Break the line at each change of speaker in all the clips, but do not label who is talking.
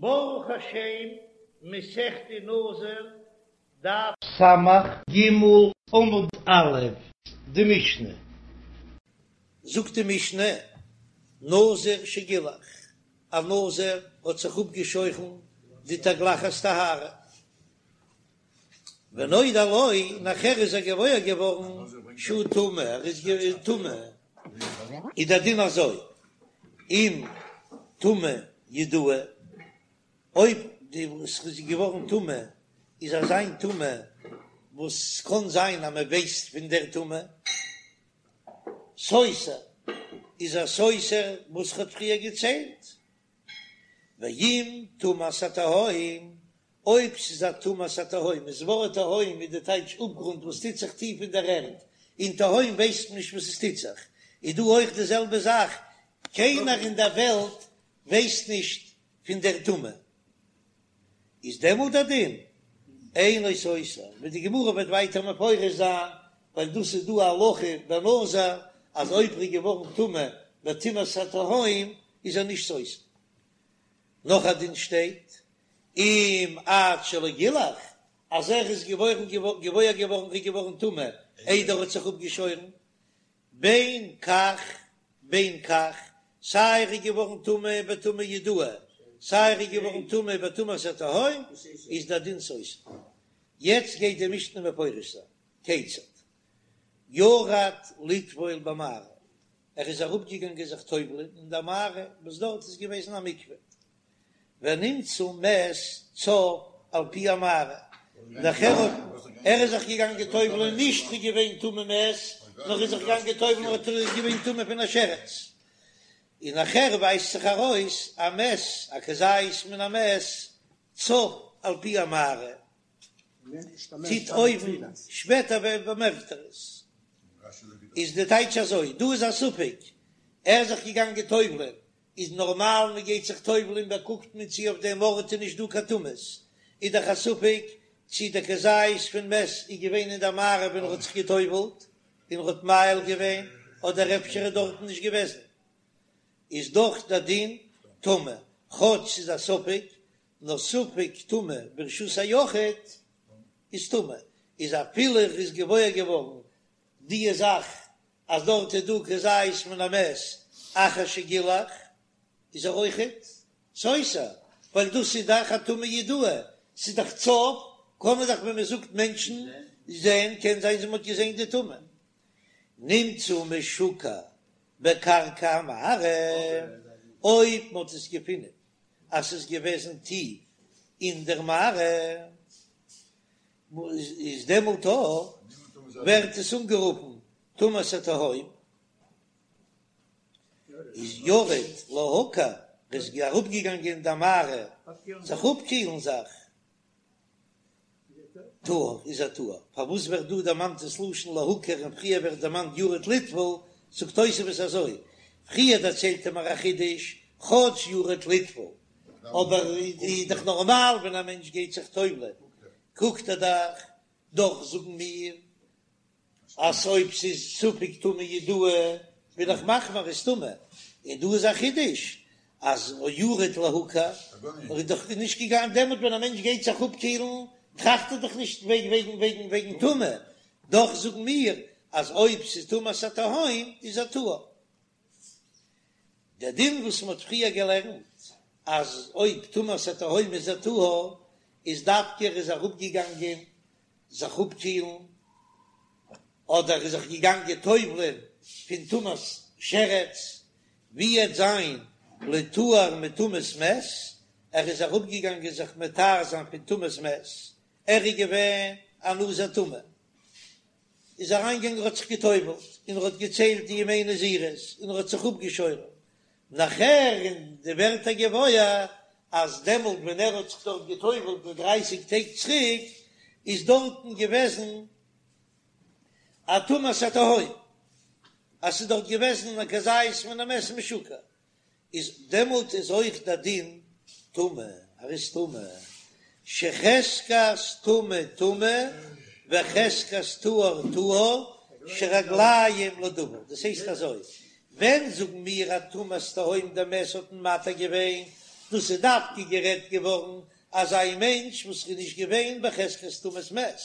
ברוך השם, מסכת נזיר, דף סמך ג עמוד א', די משנה. זאגט די משנה, נזיר שגילח, א נזיר האט זיך אפגעשוירן די תגלחת טהרה, ונודע לו, נאכער איז ער געוואויר געווארן שהוא טמא, ער איז טמא, איז דער דין אזוי, אם טומאה ידועה, אויב די וואס איז געווארן טמא איז אזא טומאה וואס ס'קען זיין אז מען ווייסט פון דער טומאה, סותר, איז ער סותר וואס כ'האט פריער געציילט, ואם טומאת התהום, אויב ס'איז א טומאת התהום, איז ווארט תהום איז די טייטש אפגרונט וואס טוט זיך טיף אין דער ערד, אין תהום ווייסט מען נישט וואס עס טוט זיך, איז דא אויך די זעלבע זאך, קיינער אין דער וועלט ווייסט נישט פון דער טומאה, איז דעמאלט דער דין אינו סותר, ווי די גמרא וועט ווייטער מפרש זיין, ווייל דאס איז דא א הלכה בנזיר אז אויב ער איז געווארן טמא בטומאת התהום איז ער נישט סותר. נאך א דין שטייט אם עד שלא גילח, אז ער איז געווארן געוואויר געווארן איז געווארן טמא איידער ער האט זיך אפגעשוירן, בין כך בין כך, סיי ער איז געווארן טמא בטומאה ידועה, סיי ער איז געווארן טמא בטומאת התהום, איז דער דין סותר. יעצט גייט די משנה מפרש זיין, כיצד? ירד לטבול במערה, ער איז אראפגעגאנגען זיך טובל'ען אין דער מערה וואס דארט איז געוועזן א מקווה, ונמצא מת צף על פי המערה, נאכער האט ער איז זיך געגאנגען טובל'ען נישט איז געווען טמא מת, נאר איז זיך געגאנגען טובל'ען האט ער איז געווען טמא פון א שרץ, און נאכער ווייזט זיך ארויס א מת א כזית מן המת צף על פי המערה, טוט אויבן, שפעטער באמערקט ער עס. איז די טייטש אזוי, דא איז א ספק, ער איז זיך געגאנגען טובל'ען, איז נארמאל מען גייט זיך טובל'ען באקוקט מען צי אויף דעם ארט איז נישט דא קיין טומאות, איז דאך א ספק צי דער כזית פון מת איז געווען אין דער מערה ווען ער האט זיך געטובל'ט און ער האט מאהיל געווען, אדער אפשר איז דארטן נישט געוועזן, איז דאך דער דין טמא, כאטש ס'איז א ספק, נאר ספק טומאה ברשות היחיד איז טמא, איז אפילו ער איז געוואויר געווארן די זאך אז דארט איז דא כזית מן המת אחר שגילח איז ער אויכעט סותר, ווייל דאס איז דאך א טומאה ידועה, ס'איז דאך צף, קען מען דאך ווען מען זאגט מענטשן זעהן, קען זיין אז מען האט געזעהן די טומאה. נמצא משוקע בקרקע המערה, אויב מען האט עס געפינען אז ס'איז געוועזן טיף אין דער מערה, איז דעמאלט ווערט עס אנגערופן טומאת התהום, איז ירד להקר, ער איז אראפגעגאנגען אין דער מערה זיך אפקילן זיך, טהור איז ער טהור, פארוואס ווערט דא דערמאנט דאס לשון להקר און פריער ווערט דערמאנט ירד לטבול, זאגט תוספות אזוי, פריער דערציילט ער מיר א חידוש, כאטש ירד לטבול, אבער איז דאך נארמאל ווען א מענטש גייט זיך טובל'ען קוקט ער דאך, דאך זאגן מיר אז אויב ס'איז ספק טומאה ידועה בין איך מחמיר איז טמא, און דא איז א חידוש אז ירד להקר, ער איז דאך נישט געגאנגען דעמאלט ווען א מענטש גייט זיך אפקילן טראכט ער דאך נישט וועגן וועגן וועגן וועגן טומאה, דאך זאגן מיר אז אויב ס'איז טומאת התהום איז ער טהור. דער דין וואס מ'האט פריער געלערנט אז אויב טומאת התהום איז ער טהור, איז דווקא ער איז אראפגעגאנגען זיך אפקילן, אדער איז זיך געגאנגען טובל'ען פון טומאת שרץ, ווי עט זיין לטהר מטומאת מת, ער איז אראפגעגאנגען זיך מטהר זיין פון טומאת מת, ער איז געווען א נזיר טמא, איז אריינגעגאנגען ער האט זיך געטובל'ט און ער האט געציילט די ימי נזירות און ער האט זיך אפגעשוירן, נאכער אין די ווערט ער געוואויר אז דעמאלט ווען ער האט זיך דארט געטובל'ט מיט דרייסיג טעג צוריק איז דארטן געוועזן א טומאת התהום, אז ס'איז דארט געוועזן א כזית מן המת משוקע, איז דעמאלט איז אויך דער דין טמא, ער איז טמא, שחזקת טמא טמא וחזקת טהור טהור שרגליים לדבר, דאס הייסט אזוי, ווען זאגן מיר אז טומאת תהום דער מת האט מען מתיר געווען? דאס איז דווקא גערעדט געווארן אזא מענטש וואס איז נישט געווען בחזקת טומאת מת,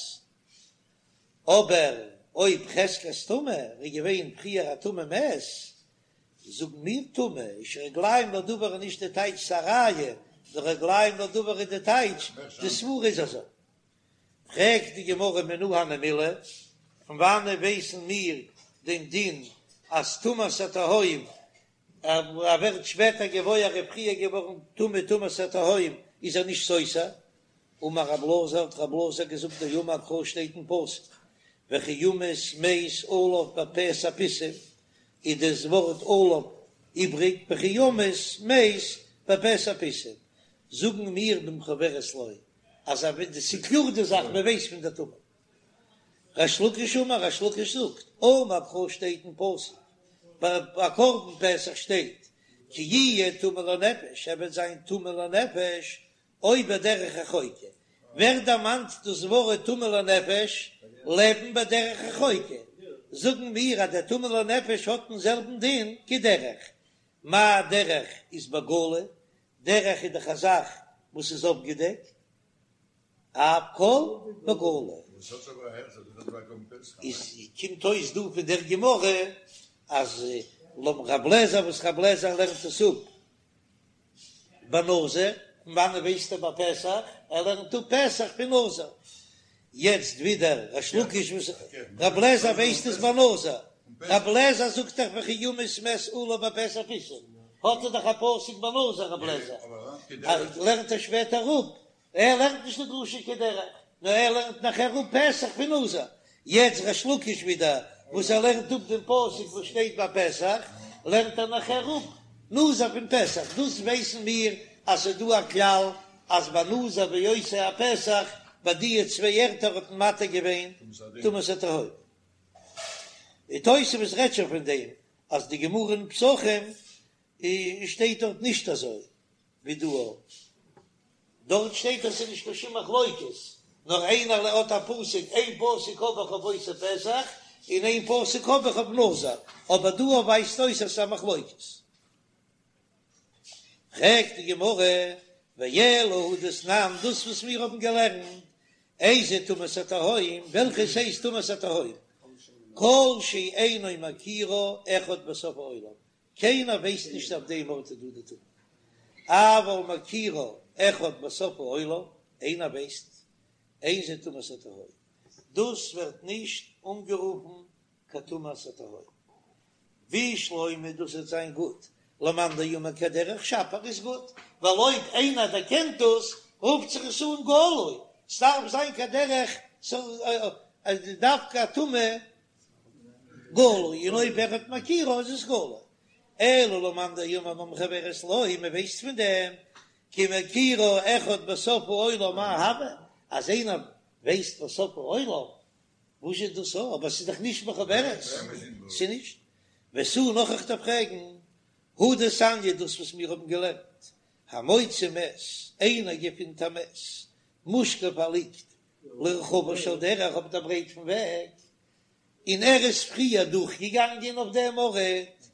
אבער אויב חזקת טומאה ער איז געווען פריער א טמא מת, זאגן מיר טמא איז שרגליים לדבר איז נישט די טייטש ס'א ראיה, נאר רגליים לדבר איז די טייטש די סברה איז אזוי. פרעגט די גמרא מנא הני מילי, פון וואנעט ווייסן מיר דעם דין אז טומאת התהום ער ווערט שפעטער געוואויר ער איז פריער געווארן טמא טומאת התהום איז ער נישט סותר? אמר רב אלעזר האט רב אלעזר געזאגט דאמר קרא שטייט אין פסוק וכי ימות מת עליו בפתע פתאום איז דאס ווארט עליו איבריג וכי ימות מת בפתע פתאום זאגן מיר במחוברת לו אז ס'איז קלאר די זאך מען ווייסט פון די טומאה. ריש לקיש אמר, ריש לקיש זאגט, אמר קרא שטייט אין פסוק, ביי א קרבן פסח שטייט, כי יהיה טמא לנפש, ער וועט זיין טמא לנפש, או בדרך רחוקה, ווערט דערמאנט דאס ווארט טמא לנפש, לעבן בדרך רחוקה, זאגן מיר אז דער טמא לנפש האט דעם זעלבן דין כדרך, מה דרך איז בגלוי, דרך איז דאך א זאך וואס איז אפגעדעקט, אף כל בגלוי. איז קומט אויס דא פון דער גמרא אז לויט רב לעזער וואס רב לעזער לערנט עס אפ בנזיר, פון וואנעט ווייסט ער ביי פסח? ער לערנט אפ פסח פון נזיר. יעצט ווידער ריש לקיש וואס רב לעזער ווייסט עס בנזיר, רב לעזער זאגט דאך וכי ימות מת עליו בפתע פתאום, האט ער דאך א פסוק בנזיר רב לעזער, לערנט ער שפעטער אפ ער לערנט נישט די דרשה כדרך, נאר ער לערנט נאכער אפ פסח פון נזיר. יעצט ריש לקיש ווידער וואס ער לערנט אפ דעם פסוק וואס שטייט ביי פסח, לערנט ער נאכער אפ נזיר פון פסח. דאס ווייסן מיר אז ס'איז דא א כלל אז ביי נזיר ועושה הפסח, ביי די צוויי ערטער האט מען מתיר געווען טומאת התהום. די תוספות רעדט שוין פון דעם אז די גמרא אין פסחים שטייט דארט נישט אזוי ווי דא. דארט שטייט אז ס'איז נישט קיין שום מחלוקת, נאר איינער האט א פסוק, איין פסוק האב איך אויף עושה פסח, און איין פסוק האב איך אויף נזיר, אבער דא ווייזט אויס אז ס'איז א מחלוקת. פרעגט די גמרא, ואלא הא דתנן, דאס וואס מיר האבן געלערנט, איזה טומאת התהום, וועלכעס הייסט טומאת התהום, כל שאינו מכירה אחד בסוף העולם, קיינער ווייסט נישט אויף דעם ארט איז דא די טומאה, אבל מכירה אחד בסוף העולם, איינער ווייסט, אין זה טומאת התהום, דאס ווערט נישט אנגערופן קיין טומאת התהום, בשלמא דאס וועט זיין גוט, למאן דאמר כדרך שפיר איז גוט, ווייל אויב איינער דערקענט דאס רופט זיך עס אן גלוי, ס'דארף זיין כדרך דווקא א טומאה גלוי, און אויב אחד מכירה איז עס גלוי. אלא למאן דאמר במחוברת לו, מען ווייסט פון דעם, כי מכירה אחד בסוף העולם מאי הוי, אז איינער ווייסט בסוף העולם, וואס איז דאס א, אבער ס'איז דאך נישט מחוברת, ס'איז נישט. ותו נאך איך דארף פרעגן, הא דתניא דאס וואס מיר האבן געלערנט, המוצא מת, איינער געפינט א מת, מושכב ער ליגט לרחבה של דרך אויף דער ברייט פון וועג, און ער איז פריער דורכגעגאנגען אויף דעם ארט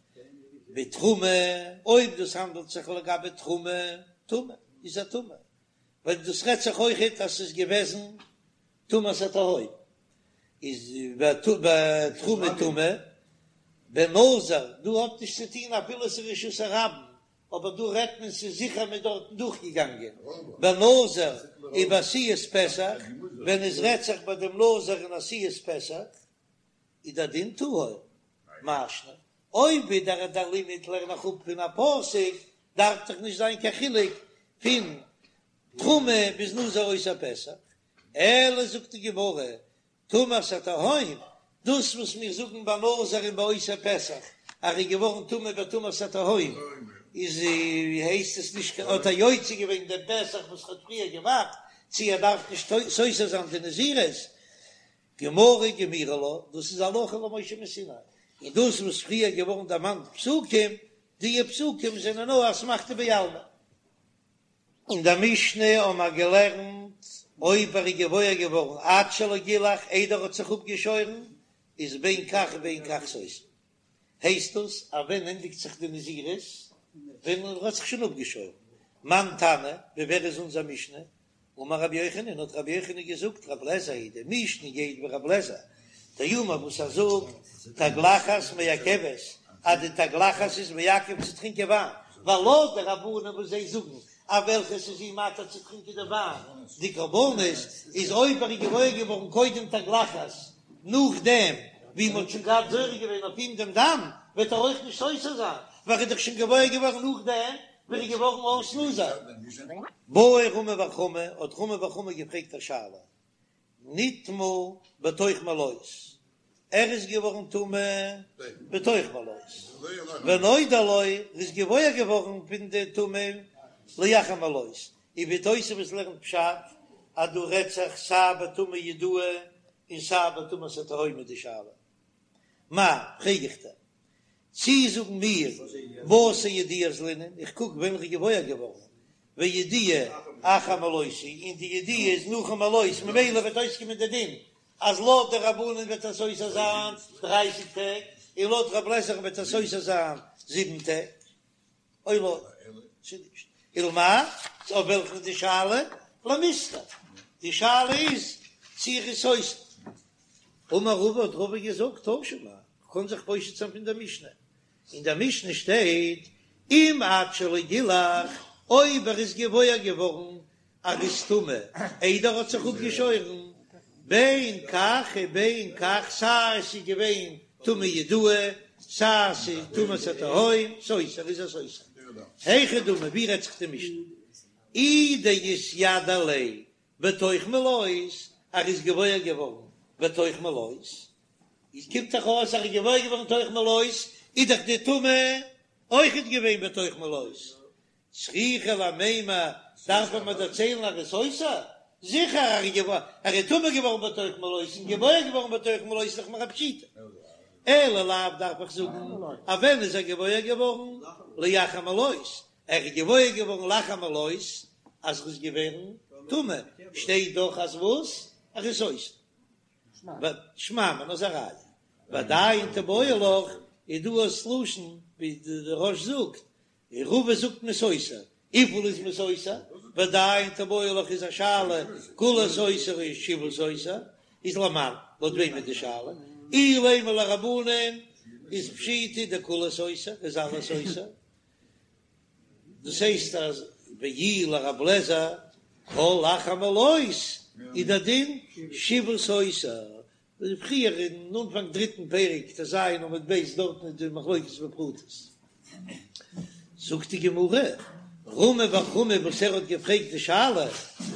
בתרומה, אויב דאס האנדלט זיך לגבי תרומה, טמא, איז ער טמא, ווייל דאס רעדט זיך אויכעט אז ס'איז געוועזן טומאת התהום, איז בתרומה טמא, בנזיר, דא האט נישט צו טון אפילו ס'איז רשות הרבים, אבער דא רעדט מען ס'איז זיכער מ'איז דארטן דורכגעגאנגען בנזיר ובעשיית פסח, ווען עס רעדט זיך ביי דעם נזיר און עשיית פסח איז דער דין טהור, מאי שנא אויב ווידער דער לימוד לערן איך אפ פון א פסוק דארף דאך נישט זיין קיין חילוק פון תרומה ביז נזיר עושה פסח, אלא זאגט די גמרא טומאת התהום, דאס וואס מיר זאגן ביי נזיר און ביי עושה פסח אז ער איז געווארן טמא בטומאת התהום, איז הייסט עס נישט האט ער יוצא געווען דעם פסח וואס ער האט פריער געמאכט, צי ער דארף נישט סותר זיין די נזירות, גמרא גמירי לה, דאס איז הלכה למשה מסיני, און דאס וואס פריער געווארן דערמאנט פסוקים, דיע פסוקים זענען נאר אסמכתא בעלמא. אין דער משנה האבן מיר געלערנט, אויב ער איז געוואויר געווארן עד שלא גילח, איידער ער האט זיך אפגעשוירן, איז בין כך ובין כך סותר. הייסט דאס אז ווען ענדיגט זיך די נזירות? ווען ער האט זיך שוין אפגעשוירן. מאן תנא, ווי ווער איז אונזער משנה? אמר רבי יוחנן, האט רבי יוחנן געזאגט, רבי אליעזר היא, די משנה גייט ווי רבי אליעזר, דאמר וואס ער זאגט, תגלחת מעכבת, אז די תגלחת איז מעכב צו טרינקען וויין, ווייל לויט די רבנן וואס זיי זאגן אז וועלכעס איז אים מתיר צו טרינקען די וויין, די קרבנות, איז אויב ער איז געוואויר געווארן קודם תגלחת, נאכדעם ווי מען האט שוין געהאט זורק געווען אויף אים דעם דם, וועט ער אויך נישט סותר זיין, ווייל ער איז דאך שוין געוואויר געווארן נאכדעם ווי ער איז געווארן אויס נזיר. בעי רמי בר חמא, האט רמי בר חמא געפרעגט א שאלה, נטמא בתוך מלאות, ער איז געווארן טמא בתוך מלאות, ונודע לו, ער איז געוואויר געווארן פון די טומאה לאחר מלאות, און ווי תוספות לערנט פשט אז דא רעדט זיך סיי בטומאה ידועה און סיי בטומאת התהום איז די שאלה. מאי, פרעג איך דיר, צי זאגן מיר בתר ידיעה אזלינן, איך קוק ווען ער איז געוואויר געווארן, וידיעה אחר מלאות היא, און די ידיעה איז נאכן מלאות, ממילא וועט אויסקומען די דין אז לויט די רבנן וועט ער סותר זיין דרייסיג טעג, און לויט רב לעזער'ן וועט ער סותר זיין זיבן טעג. או לא, צו נישט. ולמאי, אויף וועלכן איז די שאלה? למיסתר. די שאלה איז צו ער איז סותר. אמר רבא האט רבא געזאגט תא שמע, כ'קען זיך פושט זיין פון דער משנה. אין דער משנה שטייט אם עד שלא גילח, אויב ער איז געוואויר געווארן אז ער איז טמא איידער ער האט זיך אפגעשוירן, בין כך ובין כך, סיי עס איז געווען טומאה ידועה, סיי עס איז טומאת התהום, סותר איז ער סותר. היכי דמי, ווי רעדט זיך די משנה? אי דאתיידע ליה בתוך מלאות, ער איז געוואויר געווארן בתוך מלאות, איז קומט דאך אויס אז ער איז געוואויר געווארן בתוך מלאות, איז דאך די טומאה אויכעט געווען בתוך מלאות, צריכא למימר, דארף מען מיר דערציילן אז ער איז סותר? זיכער ער איז טמא געווארן בתוך מלאות און געוואויר געווארן בתוך מלאות איז דאך מיר א פשיטא. אלא לאו דארף איך זאגן אז ווען איז ער געוואויר געווארן? לאחר מלאות, ער איז געוואויר געווארן לאחר מלאות אז ער איז געווערן טמא, שטייט דאך אז וואס? ער איז סותר. שמע מינה איז א ראיה. ועדיין תיבעי לך איז דא אויס לשון ווי די רא"ש זאגט און רבא זאגט מ'איז סותר, וויפיל איז מען סותר? ועדיין תיבעי לך איז א שאלה, כולהו סותר או שבעה סותר, איז למאן, לויט וועם איז די שאלה? אילימא לרבנן איז פשיטא דכולהו סותר, איז אלעס סותר, דאס הייסט אז ואי לרב לעזער כל אחר מלאות איז דער דין שבעה סותר, ווי פריער אין אנפאנג דריטן פרק ט"ז עמוד ב' דארטן איז די מחלוקת בפרטות. זאגט די גמרא, רמי בר חמא וואס ער האט געפרעגט די שאלה,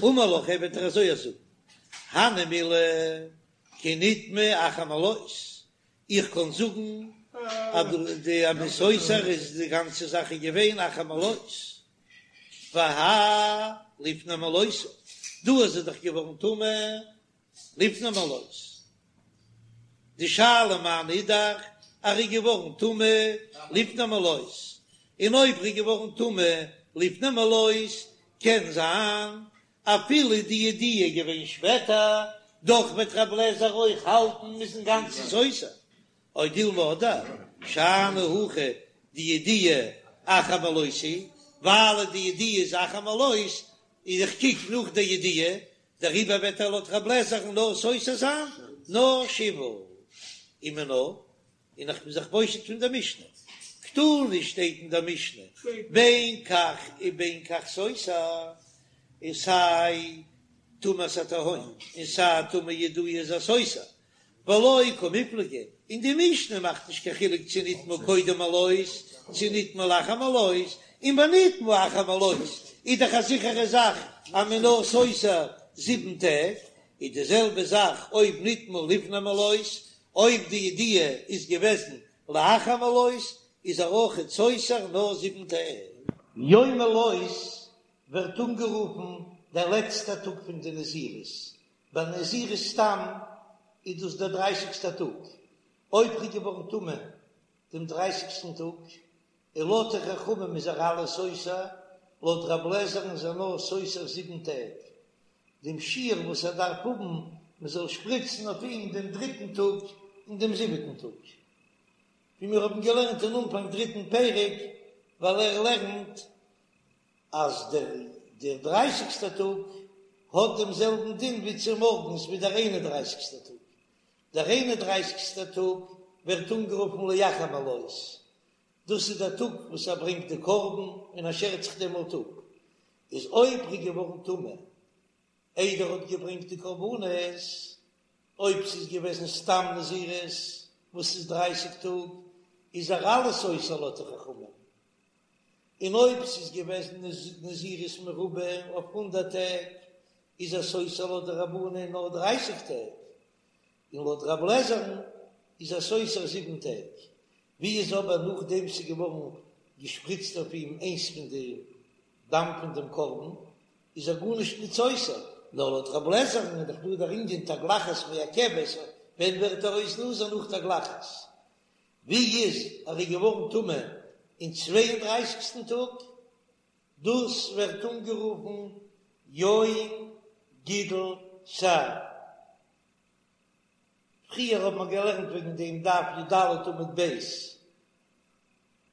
אמר לך ער וועט דיר אזוי זאגן, הני מילי כי נטמא אחר מלאות, איך קען זאגן אז די אז מ'איז סותר איז די גאנצע זאך איז געווען אחר מלאות, והאי לפני מלאות, דא איז ער דאך געווארן טמא לפני מלאות. די שאלה מיינע איז דאך אז ער איז געווארן טמא לפני מלאות, און אויב ער איז געווארן טמא לפני מלאות קען זיין אפילו די ידיעה איז געווען שפעטער, דאך וועט רב לעזער אויך האלטן מ'איז אינגאנצן סותר. או דילמא אדער שאני הכא דידיעה אחר מלאות היא, ווייל די ידיעה איז אחר מלאות, איז איך קוק נאך די ידיעה, דעריבער וועט ער לויט רב לעזער'ן נאר סותר זיין נאר שבעה ומינה, און איך בין זיך פושט פון דער משנה, קתני שטייט אין דער משנה בין כך ובין כך סותר, און סיי טומאת התהום און סיי טומאה ידועה איז ער סותר, ולא קמיפלגי, און די משנה מאכט נישט קיין חילוק צו נטמא קודם מלאות צו נטמא לאחר מלאות, און ביי נטמא אחר מלאות איז דאך א זיכערע זאך אז מען נאר סותר זיבן טעג, איז די זעלבע זאך אויב נטמא לפני מלאות, אויב די ידיעה איז געוועזן לאחר מלאות איז ער אויכעט סותר נאר זיבן טעג. יום מלאות ווערט אנגערופן דער לעצטער טאג פון די נזירות, ביי נזירות סתם איז דאס דער דרייסיגסטער טאג, אויב ר'איז געווארן טמא דעם דרייסיגסטן טאג, און לויט די חכמים איז ער אלעס סותר, לויט רב לעזער'ן איז ער נאר סותר זיבן טעג, דעם שיעור וואס ער דארף האבן מען זאל שפריצן אויף אים דעם דריטן טאג און דעם זיבעטן טאג, ווי מיר האבן געלערנט אין אנפאנג דריטן פרק, ווייל ער לערנט. אז דער דער דרייסיגסטער טאג האט דעם זעלבן דין ווי צומארגנס ווי דער איין און דרייסיגסטער טאג. דער איין און דרייסיגסטער טאג ווערט אנגערופן לאחר מלאות, דאס איז דער טאג וואס ער ברענגט די קרבן און ער שערט זיך דעמאלט אפ, איז אויב ער איז געווארן טמא איידער ער האט געברענגט די קרבנות, אויב ס'איז געוועזן סתם נזירות וואס איז דרייסיג טאג, איז ער אלעס סותר לויט די חכמים, און אויב ס'איז געוועזן נזירות מרובה אויף הונדערט טעג, איז ער סותר לויט די רבנן נאר דרייסיג טעג, און לויט רב לעזער'ן איז ער סותר זיבן טעג. ווי איז אבער נאכדעם ס'איז געווארן געשפריצט אויף אים איינס פון די דם פון דעם קרבן, איז ער גארנישט ניט סותר, נאר לויט רב לעזער'ן איז דאך דא דער ענין תגלחת מעכבת, ווען ווערט ער אויס נזיר נאך תגלחת? ווי איז ער איז געווארן טמא אין צוויי און דרייסיגסטן טאג? דאס ווערט אנגערופן יום גידול שער. פריער האט מען געלערנט וועגן דעם דף י"ד עמוד ב',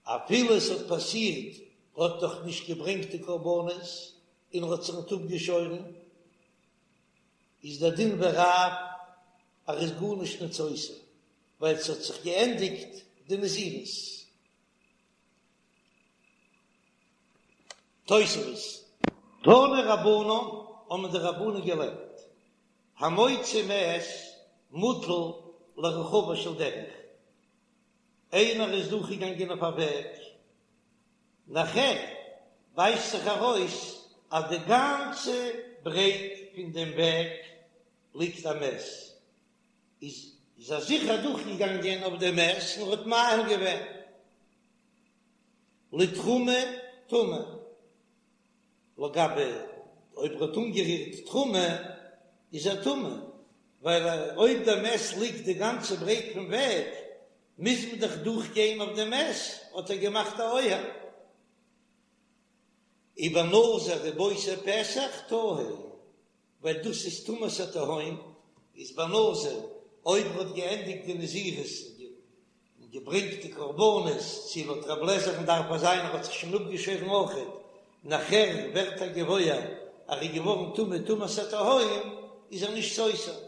אפילו עס האט פאסירט ער האט נאך נישט געברענגט די קרבנות און ער האט זיך ניט אפגעשוירן, איז דער דין ווי רב אז ער איז גארנישט ניט סותר, ווייל ס'האט זיך געענדיגט די נזירות. תוספות. תנו רבנן, האבן די רבנן געלערנט, המוציא מת מוטל לרחבה של דרך, איינער איז דורכגעגאנגען אויף א וועג, נאכער ווייזט זיך ארויס אז די גאנצע ברייט פון דעם וועג ליגט א מת, איז איז ער זיכער דורכגעגאנגען אויף דעם מת און האט מאהיל געווען לתרומה טמא, לגבי אויב ער האט אנגערירט תרומה איז ער טמא, ווייל אויב דער מת ליגט די גאנצע ברייט פון וועג מוז מען דאך דורכגיין אויף דעם מת, האט ער געמאכט א אוהל. ובנזיר ובעושה פסח טהור. ווייל דאס איז טומאת התהום, איז ביי נזיר אויב ער האט געענדיגט די נזירות און געברענגט די קרבנות, צו לויט רב לעזער'ן דארף עס זיין ער האט זיך שוין אפגעשוירן אויכעט, נאכער ווערט ער געוואויר אז ער איז געווארן טמא טומאת התהום, איז ער נישט סותר.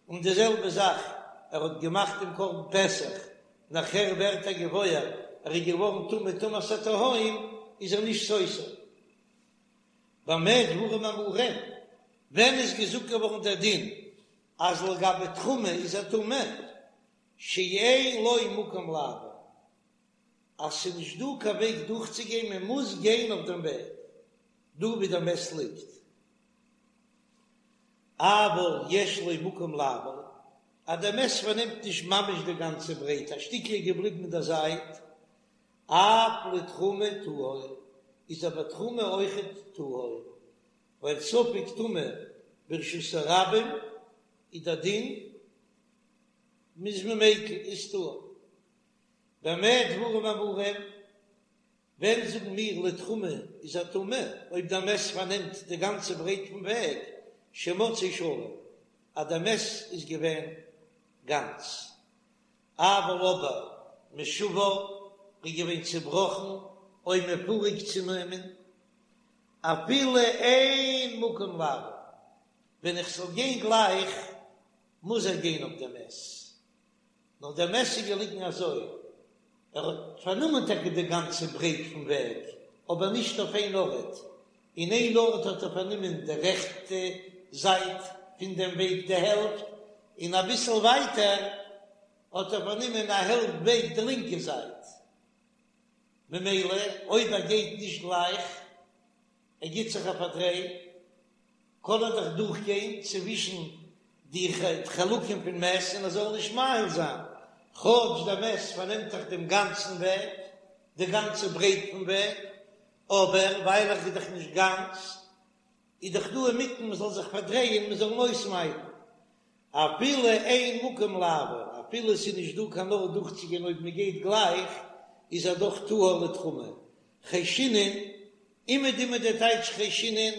און די זעלבע זאך ער האט געמאכט דעם קרבן פסח, נאכער ווערט ער געוואויר ער איז געווארן טמא טומאת התהום, איז ער נישט סותר. במה דברים אמורים, ווען איז געזאגט געווארן דער דין אז לגבי תרומה איז ער טמא, שאין לו מקום לעבור, אז ס'איז נישט דא קיין וועג דורכצוגיין, מען מוז גיין אויף דעם וועג דא ווי דער מת ליגט, אבל יש לו מקום לעבור, אז דער מת פארנעמט נישט ממש די גאנצע ברייט, א שטיקל איז געבליבן אין דער זייט, אף לתרומה טהור, איז אבער תרומה אויכעט טהור, ווייל ספק טומאה ברשות הרבים איז דער דין מ'איז מיקל איז טהור. במה דברים אמורים, ווען זאגן מיר לתרומה איז ער טמא, אויב דער מת פארנעמט די גאנצע ברייט פון וועג, שמצאו שלם, אז דער מת איז געווען גאנץ. אבל אבער משובר איז געווען צובראכן או מפורק צונומען אפילו אין מקום לעבור, ווען איך זאל גיין גלייך מוז ער גיין אויף דעם מת, נאר דער מת איז געליגן אזוי, ער האט פארנומען טאקע די גאנצע ברייט פון וועג, אבער נישט אויף איין ארט, אין איין ארט האט ער פארנומען די רעכטע זייט פון דעם וועג די העלפט, און אביסל ווייטער האט ער פארנומען א העלפט וועג די לינקע זייט, ממילא אויב ער גייט נישט גלייך, ער גיט זיך א פארדריי, קען ער דאך דורכגיין צווישן די חלקים פון מת און ער זאל נישט מאהיל זיין, כאטש דער מת פארנעמט דאך דעם גאנצן וועג, די גאנצע ברייט פון וועג, אבער ווייל ער איז דאך נישט גאנץ, איז דאך דא אינמיטן מען זאל זיך פארדרייען מען זאל אים אויסמיידן, אפילו אין מקום לעבור, אפילו עס איז נישט דא קיין ארט דורכצוגיין אויב מען גייט גלייך, איז ער דאך טהור לתרומה. חיישינן, אומעדום איז דער טייטש חיישינן,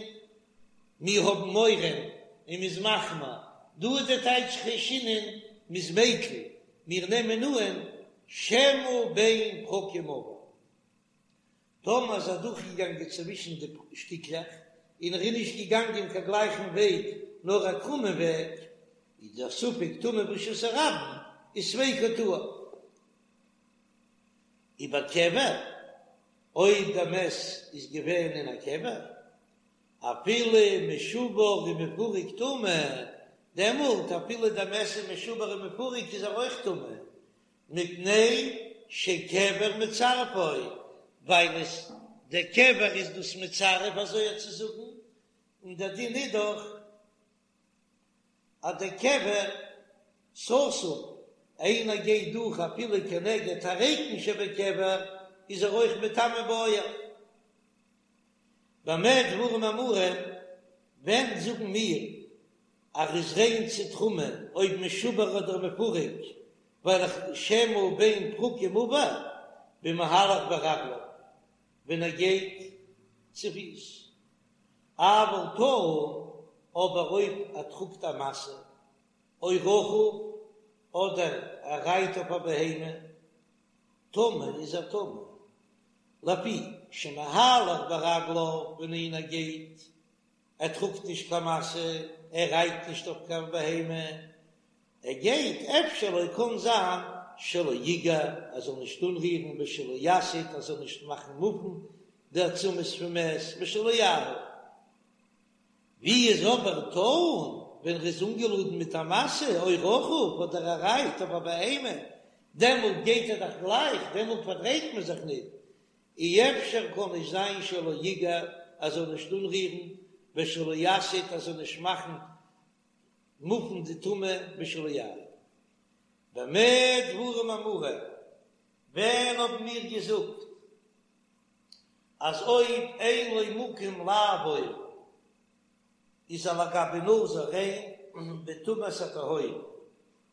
מיר האבן מורא און מ'איז מחמיר, דא איז דער טייטש חיישינן, מ'איז מיקל, מיר נעמען אן שמא בין פרקים עבר. טאמער איז ער דורכגעגאנגען צווישן די שטיקלעך און ער איז נישט געגאנגען קיין גלייכן וועג נאר א קרומען וועג, איז דער ספק טומאה ברשות הרבים איז ספיקו טהור. ובקבר, אויב דער מת איז געווען אין א קבר, אפילו משובר ומפורק טמא, דעמאלט אפילו דער מת איז משובר ומפורק איז ער אויך טמא, מפני שקבר מצרפו, ווייל עס דער קבר איז דאס מצרף אזוי צו זאגן, און דער דין איז דאך אז דער קבר סתום, איינער גייט דורך אפילו כנגד הריקן שבקבר איז ער אויך מטמא באוהל. במה דברים אמורים, ווען זאגן מיר אז ער איז ריין צו תרומה אויב משובר אדער מפורק, ווייל איך שמא בין פרקים עבר במהלך ברגליו ווען ער גייט צופיס, אבל טעון, אבער אויב ער טראגט א משא או רכוב אדער ער רייט אויף א בהמה, טמא איז ער טמא, לפי שמהלך ברגליו ווען איינער גייט, ער טראגט נישט קיין משא, ער רייט נישט אויף קיין בהמה, ער גייט, אפשר לו קאן זיין שלא יגע ער זאל נישט אנרירן ושלא יסיט ער זאל נישט מאכן מופן די עצמות פון מת ושלא יאהיל. ווי איז אבער טעון ווען ר'איז אנגעלאדן מיט א משא או רכוב אדער ער רייט אויף א בהמה, דעמאלט גייט ער דאך גלייך, דעמאלט פארדרייט מען זיך ניט, אי אפשר קאן נישט זיין שלא יגע ער זאל נישט אנרירן ושלא יסיט ער זאל נישט מאכן מופן די טומאה ושלא יאהיל. במה דברים אמורים, ווען האבן מיר געזאגט אז אויב אין לו מקום לעבור איז ער לגבי נזיר ריין בטומאת התהום,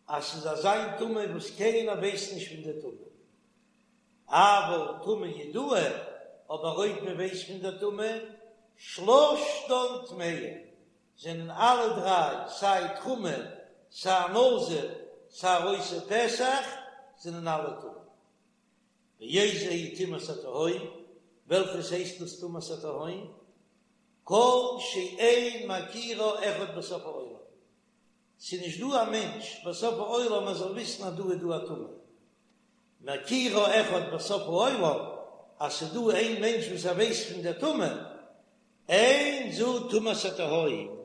אז ס'איז אזא טומאה וואס קיינער ווייסט נישט פון די טומאה, אבל טומאה ידועה, אבער אויב מען ווייסט פון די טומאה, שלשתן טמאין, זענען אלע דריי, סיי תרומה, סיי נזיר, סיי עושה פסח, זענען אלע טמא. ואיזו היא טומאת התהום, וועלכעס הייסט דאס טומאת התהום? כל שאין מכירה אחד בסוף העולם, ס'איז נישט דא א מענטש בסוף העולם אז זאל וויסן אז דא איז דא א טומאה. מכירה אחד בסוף העולם, אז ס'איז דא איין מענטש וואס ער ווייסט פון דער טומאה, אין זו טומאת התהום,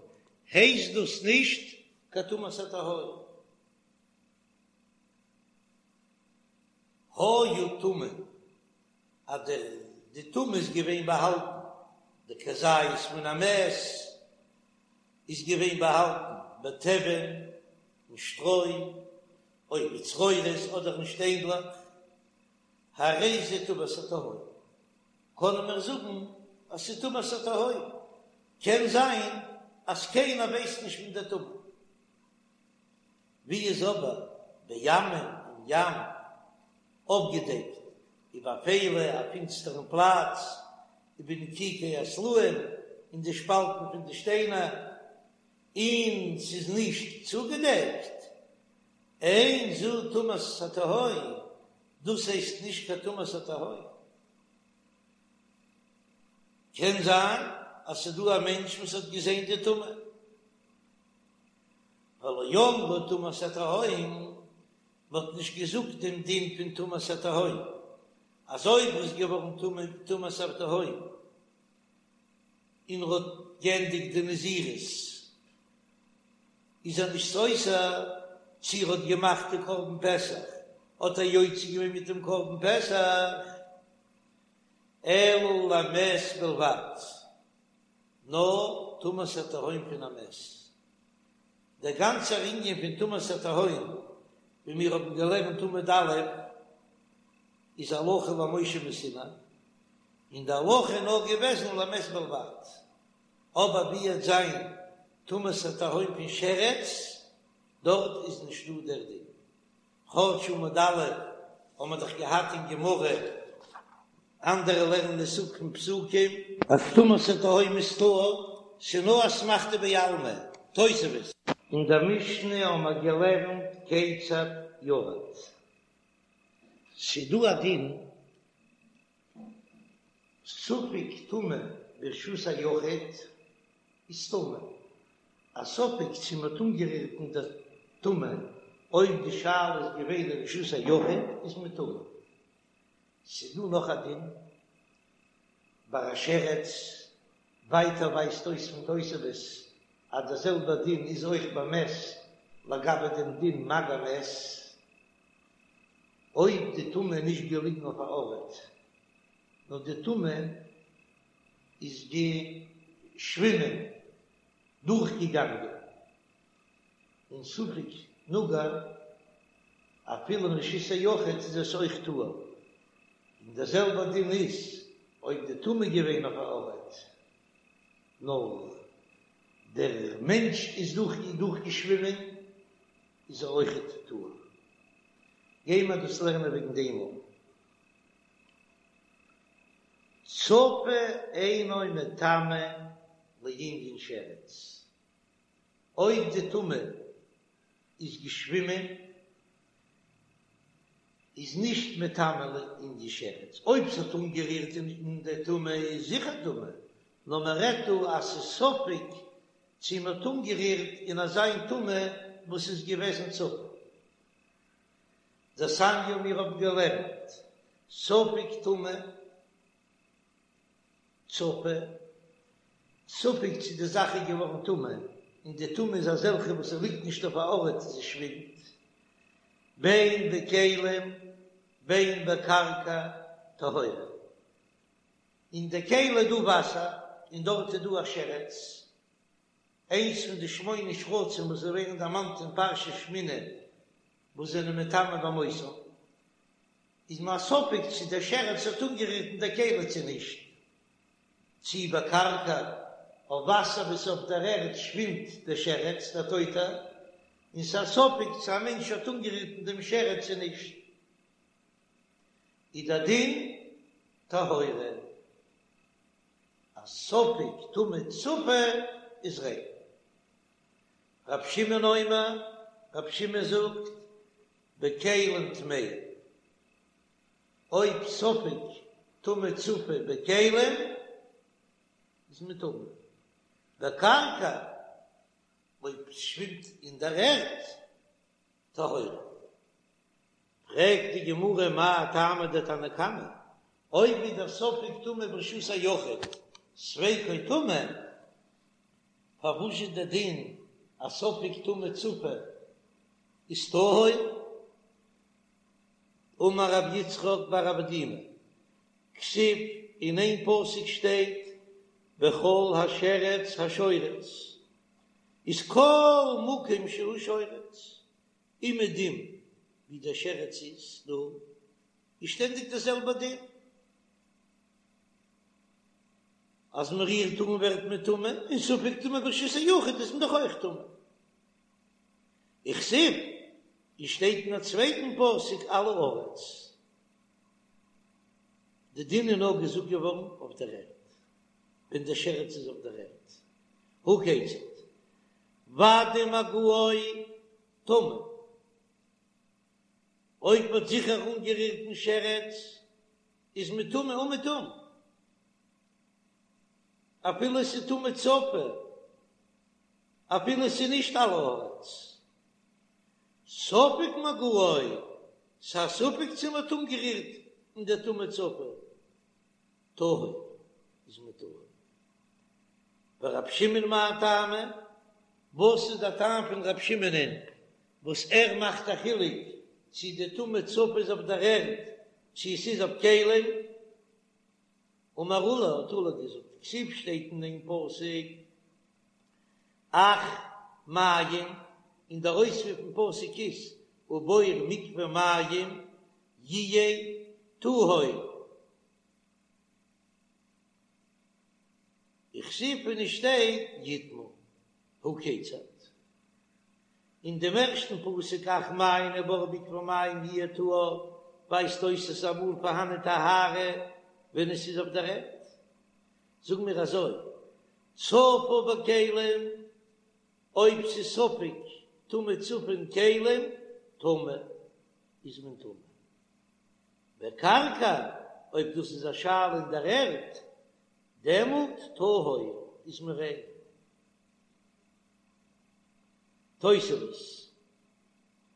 הייסט דאס נישט קיין טומאת התהום. היה טמון, אז דער די טומאה איז געווען באהאלטן, די כזית מן המת איז געווען באהאלטן בתבן אין שטרוי, או בצרורות אדער אין שטיינדלעך, הרי זה טומאת התהום, קענען מיר זאגן אז ס'איז טומאת התהום, קען זיין אז קיינער ווייסט נישט פון די טומאה. ווי איז אבער בימים אין ים אפגעדעקט ובאפילה א פינסטערן פלאץ ובנקיקי הסלעים אין די שפאלטן פון די שטיינער און ס'איז נישט צוגעדעקט, אין זו טומאת התהום, דאס הייסט נישט קיין טומאת התהום. קען זיין אז ס'איז דא א מענטש וואס האט געזען די טומאה. ולא אמרו טומאת התהום, מ'האט נישט געזאגט דעם דין פון טומאת התהום, אז אויב איז געווארן טמא טומאת התהום און ר'האט געענדיגט די נזירות איז ער נישט סותר, צי ר'האט געמאכט די קרבן פסח האט ער יוצא געווען מיט דעם קרבן פסח, אלא למת בלבד. נאר טומאת התהום פון א מת. דער גאנצער ענין פון טומאת התהום, ווי מיר האבן געלערנט עמוד א', איז הלכה למשה מסיני, און די הלכה איז נאר געוועזן למת בלבד. אבער ווי וועט זיין טומאת התהום פון שרץ, דארט איז נישט דא דער דין. כאטש עמוד א' האבן מיר דאך געהאט אין גמרא, אנדערע לערנען עס אפ פון פסוקים. אז טומאת התהום איז טהור, ס'נאר אסמכתא בעלמא, תוספות. אין דער משנה האבן מיר געלערנט כיצד ירד. ס'דא א דין. ספק טומאה ברשות היחיד איז טמא. א ספק צו מ'האט אנגערירט אין דער טומאה, אויב די שאלה איז געווען אין רשות היחיד איז מען טמא. ס'איז דא נאך א דין ביי א שרץ, ווייטער ווייזט אויס פון תוספות אז דער זעלבער דין איז אויך ביי מת לגבי דעם דין מגע מת, אויב די טומאה איז נישט געליגן אויף א ארט, נאר די טומאה איז געשווימען, דורכגעגאנגען, און ספק נגע, אפילו אין רשות היחיד איז עס אויך טהור, און דער זעלבער דין איז אויב די טומאה געווען אויף א ארט, נאר דער מענטש איז דורכגעשווימען, איז ער אויכעט טהור. גייען מיר דאס לערנען וועגן דעם אויך. צפה אינו מטמא לענין שרץ, אויב די טומאה איז געשווימען איז נישט מטמא לענין שרץ, אויב ס'האט אנגערירט אין די טומאה איז זיכער טמא, נאר מען רעדט דא אז ס'איז ספק צו מ'האט אנגערירט אין אזיין טומאה וואס איז געוועזן צפה. דתניא מיר האבן געלערנט ספק טומאה צפה, ספק צו די זאך איז געווארן טמא, און די טומאה איז אזעלכע וואס עס ליגט נישט אויף א ארט, זי שווימט, בין בכלים בין בקרקע טהורה, אין די כלי איז דא וואסער און דארט איז דא א שרץ, איינס פון די שמונה שרצים וואס ווערן דערמאנט אין פרשת שמיני וואס זענען מטמא במותם, איז מיר א ספק צו דער שרץ האט אנגערירט אין דער כלי צו נישט, צו בקרקע אויף וואסער וואס אויף דער ערד שווימט דער שרץ דער טויטער, און ס'איז א ספק צו א מענטש האט אנגערירט אין דעם שרץ צו נישט, איז דער דין טהורה. א ספק טומאה צפה איז ריין. רב שמעון אומר, רב שמעון זאגט, בכלים טמאה, אויב ספק טומאה צפה בכלים איז מען טמא, בקרקע אויב ס'שווימט אין דער ערד טהורה. פרעגט די גמרא מאי טעמא דתנא קמא, אויב איז דער ספק טומאה ברשות היחיד ספיקו טמא, פארוואס איז דער דין אז ספק טומאה צפה איז טהור? אמר רב יצחק בר אבדימי, כתיב, אין איין פסוק שטייט וכל השרץ השורץ, איז כל מקום שהוא שורץ, אומעדום ווי דער שרץ איז דא, איז שטענדיג דער זעלבער דין, אז מען רירט אן ווערט מען טמא, און ספק טומאה ברשות היחיד איז מען דאך אויך טמא. וכתיב, און שטייט אין א צווייטן פסוק על הארץ, די דין איז נאר געזאגט געווארן אויף דער ערד, ווען דער שרץ איז אויף דער ערד, הא כיצד, ודאי מגעו טמא, אויב מ'האט זיכער אנגערירט דעם שרץ איז מען טמא אומעטום, אפילו עס איז טומאה צפה, אפילו עס איז נישט על הארץ. ספק מגעו, ס'איז א ספק צו מ'האט אנגערירט אין דער טומאה צפה, טהור איז מען טהור. ורב שמעון מאי טעמא, וואס איז דער טעם פון רב שמעונ'ען וואס ער מאכט א חילוק צו די טומאה צפה איז אויף דער ערד צו עס איז אויף כלים? אמר עולא, האט עולא געזאגט, כתיב שטייט אין דעם פסוק אך מים, און דער אויספיר פון פסוק איז ובור מקווה מים יהיה טהור. וכתיב און עס שטייט יטמא הא כיצד. אין דעם ערשטן פסוק אך מים ובור מקווה מים יהיה טהור ווייזט אויס עס איז אמאל פארהאנען טהרה ווען עס איז אויף דער ערד. זאג מיר אזוי צפה בכלים אויב ס'איז ספק טומאה צפה אין כלים טמא איז מען טמא בקרקע. אויב דאס איז א שאלה אין דער ערד, דעמאלט טהור איז מען ריין. תוספות.